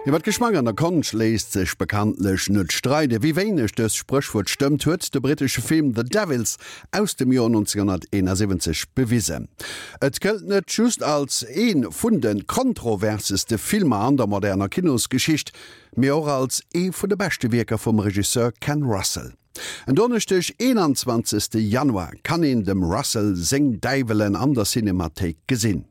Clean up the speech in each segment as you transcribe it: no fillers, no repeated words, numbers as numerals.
Iwwer Geschmack an der Konscht léisst sech bekanntlech net streiden. Wéi wéineg dëst Spréchwuert stëmmt, huet de brittesche Film The Devils aus dem Joer 1971 bewisen. Et gëllt net just als ee vun de kontroverseste Filmer an der moderner Kinosgeschicht, mee och als ee vun de beschte Wierker vum Regisseur Ken Russell. En Donneschdeg, 21. Januar, kann een dem Russell seng Däiwelen an der Cinemathéik gesinn.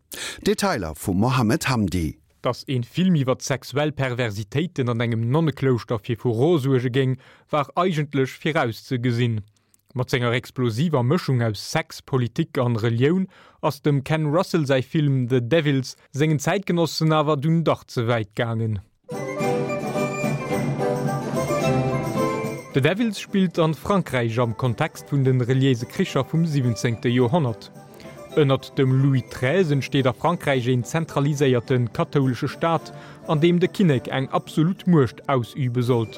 Detailer vum Mohamed Hamdi. Dass een Film iwwert sexuell Perversitéiten an engem Nonneklouschter fir Furore suerge géing, war eigentlech virauszegesinn. Mat senger explosiver Mëschung aus Sex, Politik an Relioun ass dem Ken Russell säi Film The Devils sengen Zäitgenossen awer dunn dach ze wäit gaangen. The Devils spillt an Frankräich am Kontext vun den reliéise Kricher vum 17. Joerhonnert. Ënnert dem Louis xiii entsteet a Frankräich een zentraliséierte kathoulesche Staat, an deem de Kinnek eng absolut Muecht ausübe sollt.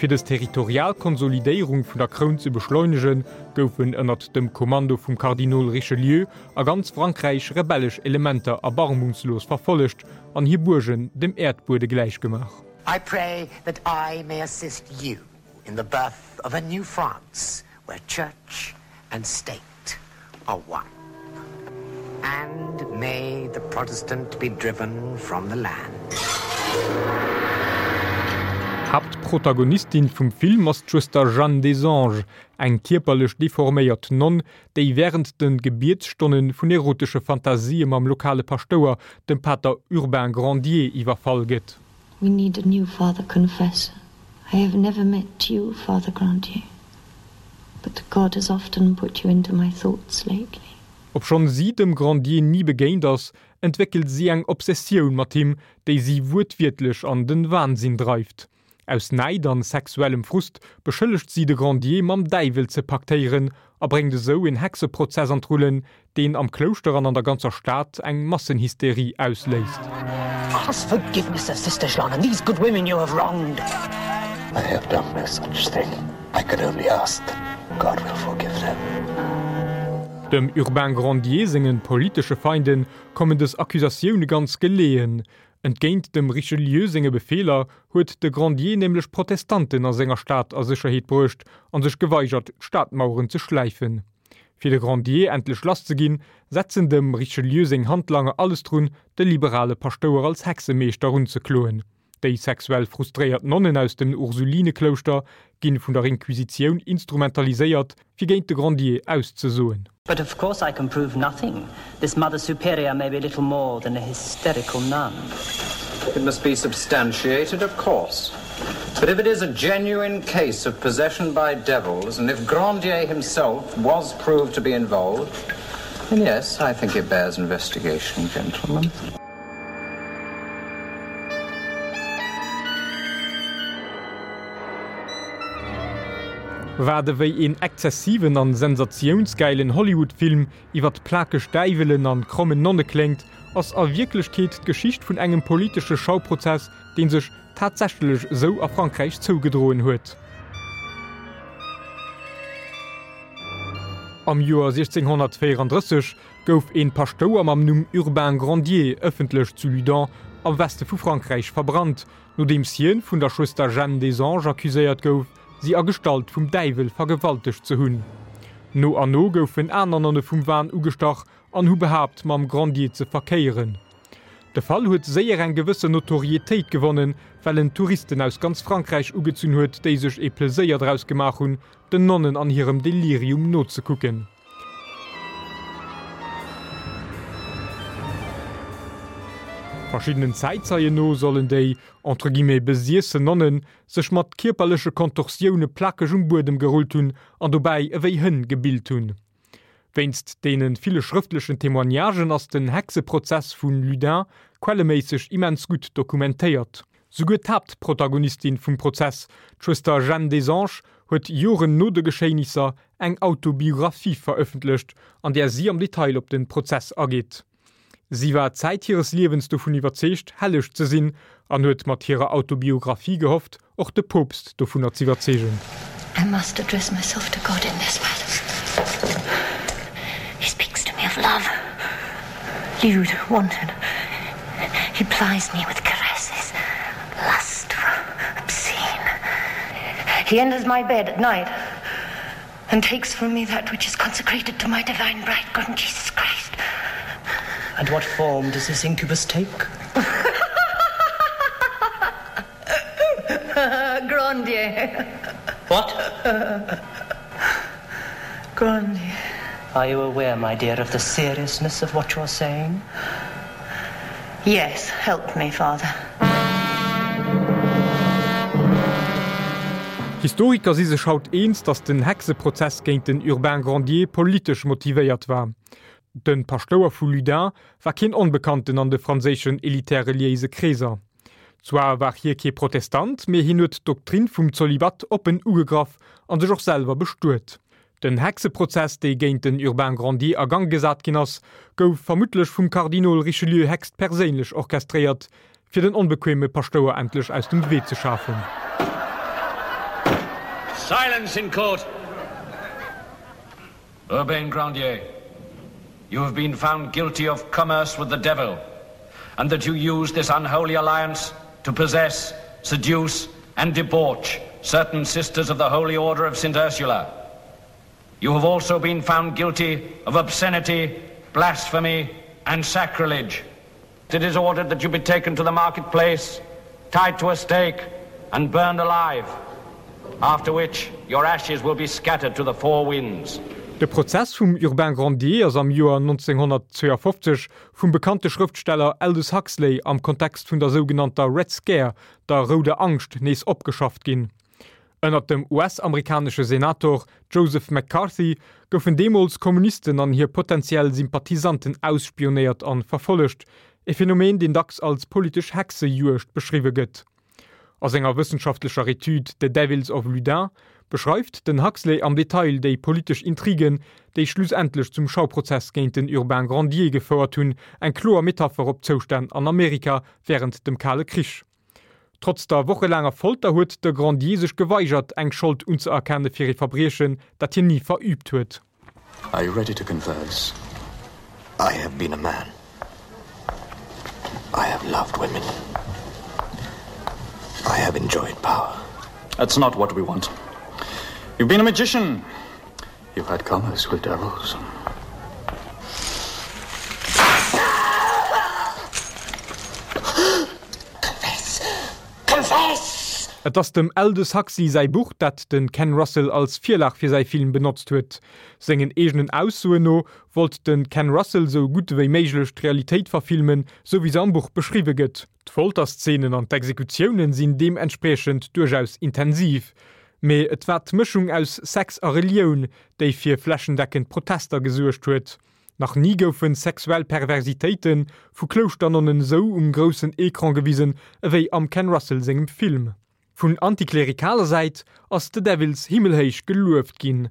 Fir dës territorial Konsolidéierung vun der Kroun ze beschleunegen, goufen ënnert dem Kommando vum Kardinol Richelieu a ganz Frankräich rebellesch Elementer erbarmungslos verfollegt an hir Buergen dem Äerdbuede gläichgemaach. I pray that I may assist you in the birth of a new France where church and state are one. And may the Protestant be driven from the land. Haaptprotagonistin vum Film ass d'Schwëster Jeanne des Anges, eng kierperlech deforméiert Nonn, déi wärend de Gebietsstonne vun erotesche Fantasië mam lokale Paschtouer, dem Pater Urbain Grandier, iwwerfall gëtt. We need a new father confessor. I have never met you, Father Grandier, but God has often put you into my thoughts lately. Obschonn si dem Grandier ni begéint ass, entwéckelt si eng Obsessioun mat him, déi si wuertwiertlech an den Wahnsinn dreift. Aus Näid an sexuellem Frust beschëllegt si de Grandier mam Däiwel ze paktéieren a bréngt esou en Hexeprozess an d'Rullen, deen am Klouschter an an der ganzer Stad eng Massenhysterie ausléist. Ask forgiveness of Sister Jeanne and these good women you have wronged. I have done no such thing. I can only ask that God will forgive them. Dem Urbain Grandier sengen politesche Feinden kommen dës Accusatioune ganz geleeën. Entgéint dem Richelieu senge Befeeler huet de Grandier nämlech Protestanten a senger Stad a Sécherheet bruecht a sech geweigert, d'Stadmaueren ze schläifen. Fir de Grandier endlech lass ze ginn, setzen dem Richelieu seng Handlanger alles drun, de liberale Paschtouer als Hexemeeschter unzekloen. Déi sexuell frustréiert Nonnen aus dem Ursulineklouschter ginn vun der Inquisitioun instrumentaliséiert, fir géint de Grandier auszesoen. But of course I can prove nothing. This Mother Superior may be little more than a hysterical nun. It must be substantiated, of course. But if it is a genuine case of possession by devils, and if Grandier himself was proved to be involved, then yes, I think it bears investigation, gentlemen. Wat ewéi een exzessiven an sensatiounsgäilen Hollywood-Film iwwert plakeg Däiwelen an krommen Nonne kléngt, ass a Wierklechkeet d'Geschicht vun engem politesche Schauprozess, deen sech tatsächlech esou a Frankräich zougedroen huet. Am Joer 1634 gouf een Paschtouer mam Numm Urbain Grandier ëffentlech zu Ludun am Weste vu Frankräich verbrannt, nodeems hien vun der Schwëster Jeanne des Anges accuséiert gouf, si a Gestalt vum Däiwel vergewaltegt ze hunn. No an no goufen aner Nonne vum Wahn ugestach an hu behaapt, mam Grandier ze verkéieren. De Fall huet séier eng gewëssen Notorietéit gewonnen, well en Touristen aus ganz Frankräich ugezunn huet, déi sech ee Pleséier draus gemaach hunn, den Nonnen an hirem Delirium nozekucken. Verschiddenen Zäitzeien no sollen déi, entre guillemets, besiessen Nonnen sech mat kierperleche Kontorsioune plakeg um Buedem gerullt hunn an dobäi ewéi Hënn gebillt hunn. Wéinst deene ville schrëftlechen Témoignagen ass den Hexeprozess vu Ludin quelleméisseg immens gutt dokumentéiert. Souguer d'Haaptprotagonistin vum Prozess, d'Schwëster Jeanne des Anges, huet Joren no de Geschéinisser eng Autobiographie verëffentlecht, an där si am Detail op de Prozess ageet. Si war Zäit hires Liewens dovun iwwerzeegt, helleg ze sinn, an huet mat hirer Autobiographie gehofft, och de Poopst dovunner z'iwwerzeegen. I must address myself to God in this matter. He speaks to me of love, lewd, wanton. He plies me with caresses. He enters my bed at night and takes from me that which is consecrated to my divine bridegroom, Jesus Christ. And what form does this incubus take? Grandier. What? Grandier. Are you aware, my dear, of the seriousness of what you are saying? Yes, help me, father. Historiker si sech haut eens, datt den Hexeprozess géint den Urbain Grandier politesch motivéiert war. De Paschtouer vu Ludun war keen Onbekannten an de franséischen elitär-reliéise Kreeser. Zwar war hie kee Protestant, mee hien huet d'Doktrin vum Zolibat oppen ugegraff a sech och selwer bestuet. Den Hexeprozess, dee géint den Urbain Grandier a Gang gesat ginn ass, gouf vermuttlech vum Kardinol Richelieu héchstperséinlech orchestréiert, fir den onbequeme Paschtouer endlech aus dem Wee ze schafen. Silence in court! Urbain Grandier, you have been found guilty of commerce with the devil, and that you used this unholy alliance to possess, seduce and debauch certain sisters of the Holy Order of St. Ursula. You have also been found guilty of obscenity, blasphemy and sacrilege. It is ordered that you be taken to the marketplace, tied to a stake and burned alive, after which your ashes will be scattered to the four winds. De Prozess vum Urbain Grandier ass am Joer 1952 vum bekannte Schrëftsteller Aldous Huxley am Kontext vun der sougenannter Red Scare, der Rouder Angscht, nees opgeschafft ginn. Ënnert dem US-amerikanesche Senator Joseph McCarthy goufen deemools Kommunisten an hir potentiell Sympathisanten ausspionéiert an verfollegt, e Phänomen, deen dacks als politesch Hexejuegd beschriwwe gëtt. A senger wëssenschaftlecher Etüd The Devils of Loudun beschreift den Huxley am Detail déi politesch Intrigen, déi schlussendlech zum Schauprozess géint den Urbain Grandier gefouert hunn, eng kloer Metapher op d'Zoustänn an Amerika wärend dem Kale Krich. Trotz der wochelaanger Folter huet de Grandier sech geweigert, eng Schold unzëerkenne fir ee Verbriechen, dat hien ni verüübt huet. Are you ready to converse? I have been a man. I have loved women. I have enjoyed power. That's not what we want. You've been a magician. You've had commerce with devils. Confess! Confess! Et ass dem Aldous Huxley säi Buch, dat de Ken Russell als Virlag fir säi Film benotzt huet. Sengen eegenen Aussoen no wollt de Ken Russell sou gutt ewéi méiglech d'Realitéit verfilmen, sou wéi se am Buch beschriwwe gëtt. D'Folterszenen an d'Exekutiounen sinn deementspriechend duerchaus intensiv. Mee et war d'Mëschung aus Sex a Relioun, déi fir flächendeckend Protester gesuergt huet. Nach ni goufe sexuell Perversitéite vu Klouschternnonnen esou um groussen Ecran gewisen ewéi am Ken Russell sengem Film. Vun antiklerikaler Säit ass The Devils himmelhéich gelueft ginn.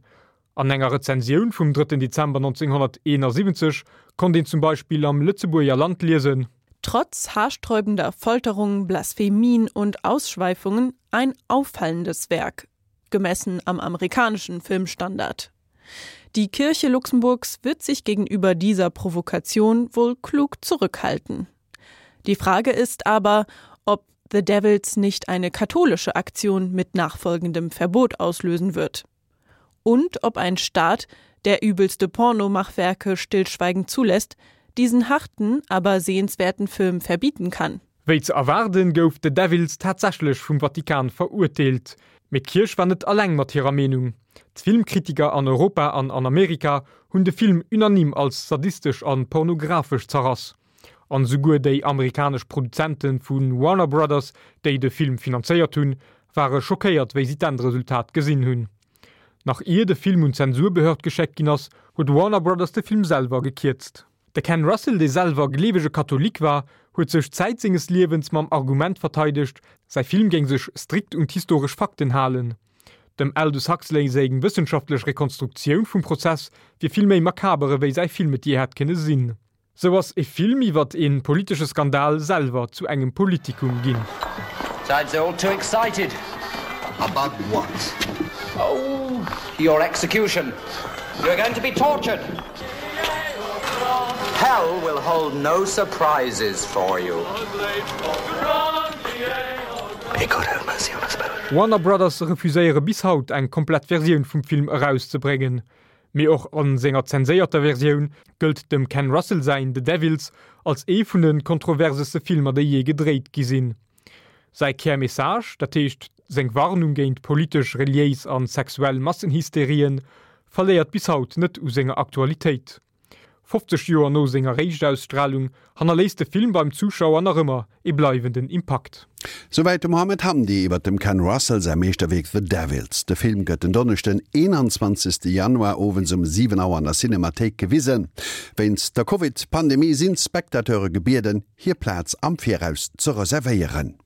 An enger Rezensioun vum 3 Dezember 1971 konnt een zum Beispill am Lëtzebuerger Land liesen. Trotz haarsträubender Folterungen, Blasphemien und Ausschweifungen ein auffallendes Werk, gemessen am amerikanischen Filmstandard. Die Kirche Luxemburgs wird sich gegenüber dieser Provokation wohl klug zurückhalten. Die Frage ist aber, ob The Devils nicht eine katholische Aktion mit nachfolgendem Verbot auslösen wird. Und ob ein Staat, der übelste Pornomachwerke stillschweigend zulässt, diesen harten, aber sehenswerten Film verbieten kann. Wéi ze erwaarden, gouf The Devils tatsächlech vum Vatikan verurteelt. Mee d'Kierch war net alleng mat hirer Meenung. D'Filmkritiker an Europa an an Amerika hunn de Film unanime als sadistesch a pornografesch zerrass. An esouguer déi amerikanesch Produzente vu Warner Brothers, déi de Film finanzéiert hunn, ware schockéiert wéi si d'Endresultat gesinn hunn. Nach ier de Film un d'Zensurbehörd geschéckt ginn ass, huet Warner Brothers de Film selwer gekierzt. De Ken Russell, dee selwer gleewege Katholik war, huet sech Zäit senges Liewens mam Argument verteidegt, säi Film géing sech strikt un d'historesch Fakten halen. Dem Aldous Huxley seng wëssenschaftlech Rekonstruktioun vum Prozess wier vill méi makaber ewéi säi Film et jee hätt kënne sinn. Sou ass e Film iwwert e politesche Skandal selwer zu engem Politikum ginn. Besides, they're all too excited. About what? Oh, your execution. You're going to be tortured. Hell will hold no surprises for you. May God have mercy on us both. Warner Brothers refuséiere bis haut eng komplett Versioun vum Film erauszebréngen. Mee och a senger zenséierter Versioun gëllt dem Ken Russell säin The Devils als ee vun de kontroverseste Filmer déi jee gedréit gi sinn. Säi Kärmessage, dat heescht seng Warnung géint politesch, reliéis an sexuell Massenhysterien, verléiert bis haut net u senger Aktualitéit. 50 Joer no senger Éischtaustralung hannerléisst de Film beim Zuschauer nach ëmmer ee bleiwenden Impakt. Souwäit de Mohamed Hamdi iwwer dem Ken Russell säi Meeschterwierk The Devils. De Film gëtt den Donneschden, 21 Januar owends um 7 Auer an der Cinemathéik gewisen. Wéinst der Covid-Pandemie sinn d'Spectateure gebieden, hir Plaz am Viraus ze reservéieren.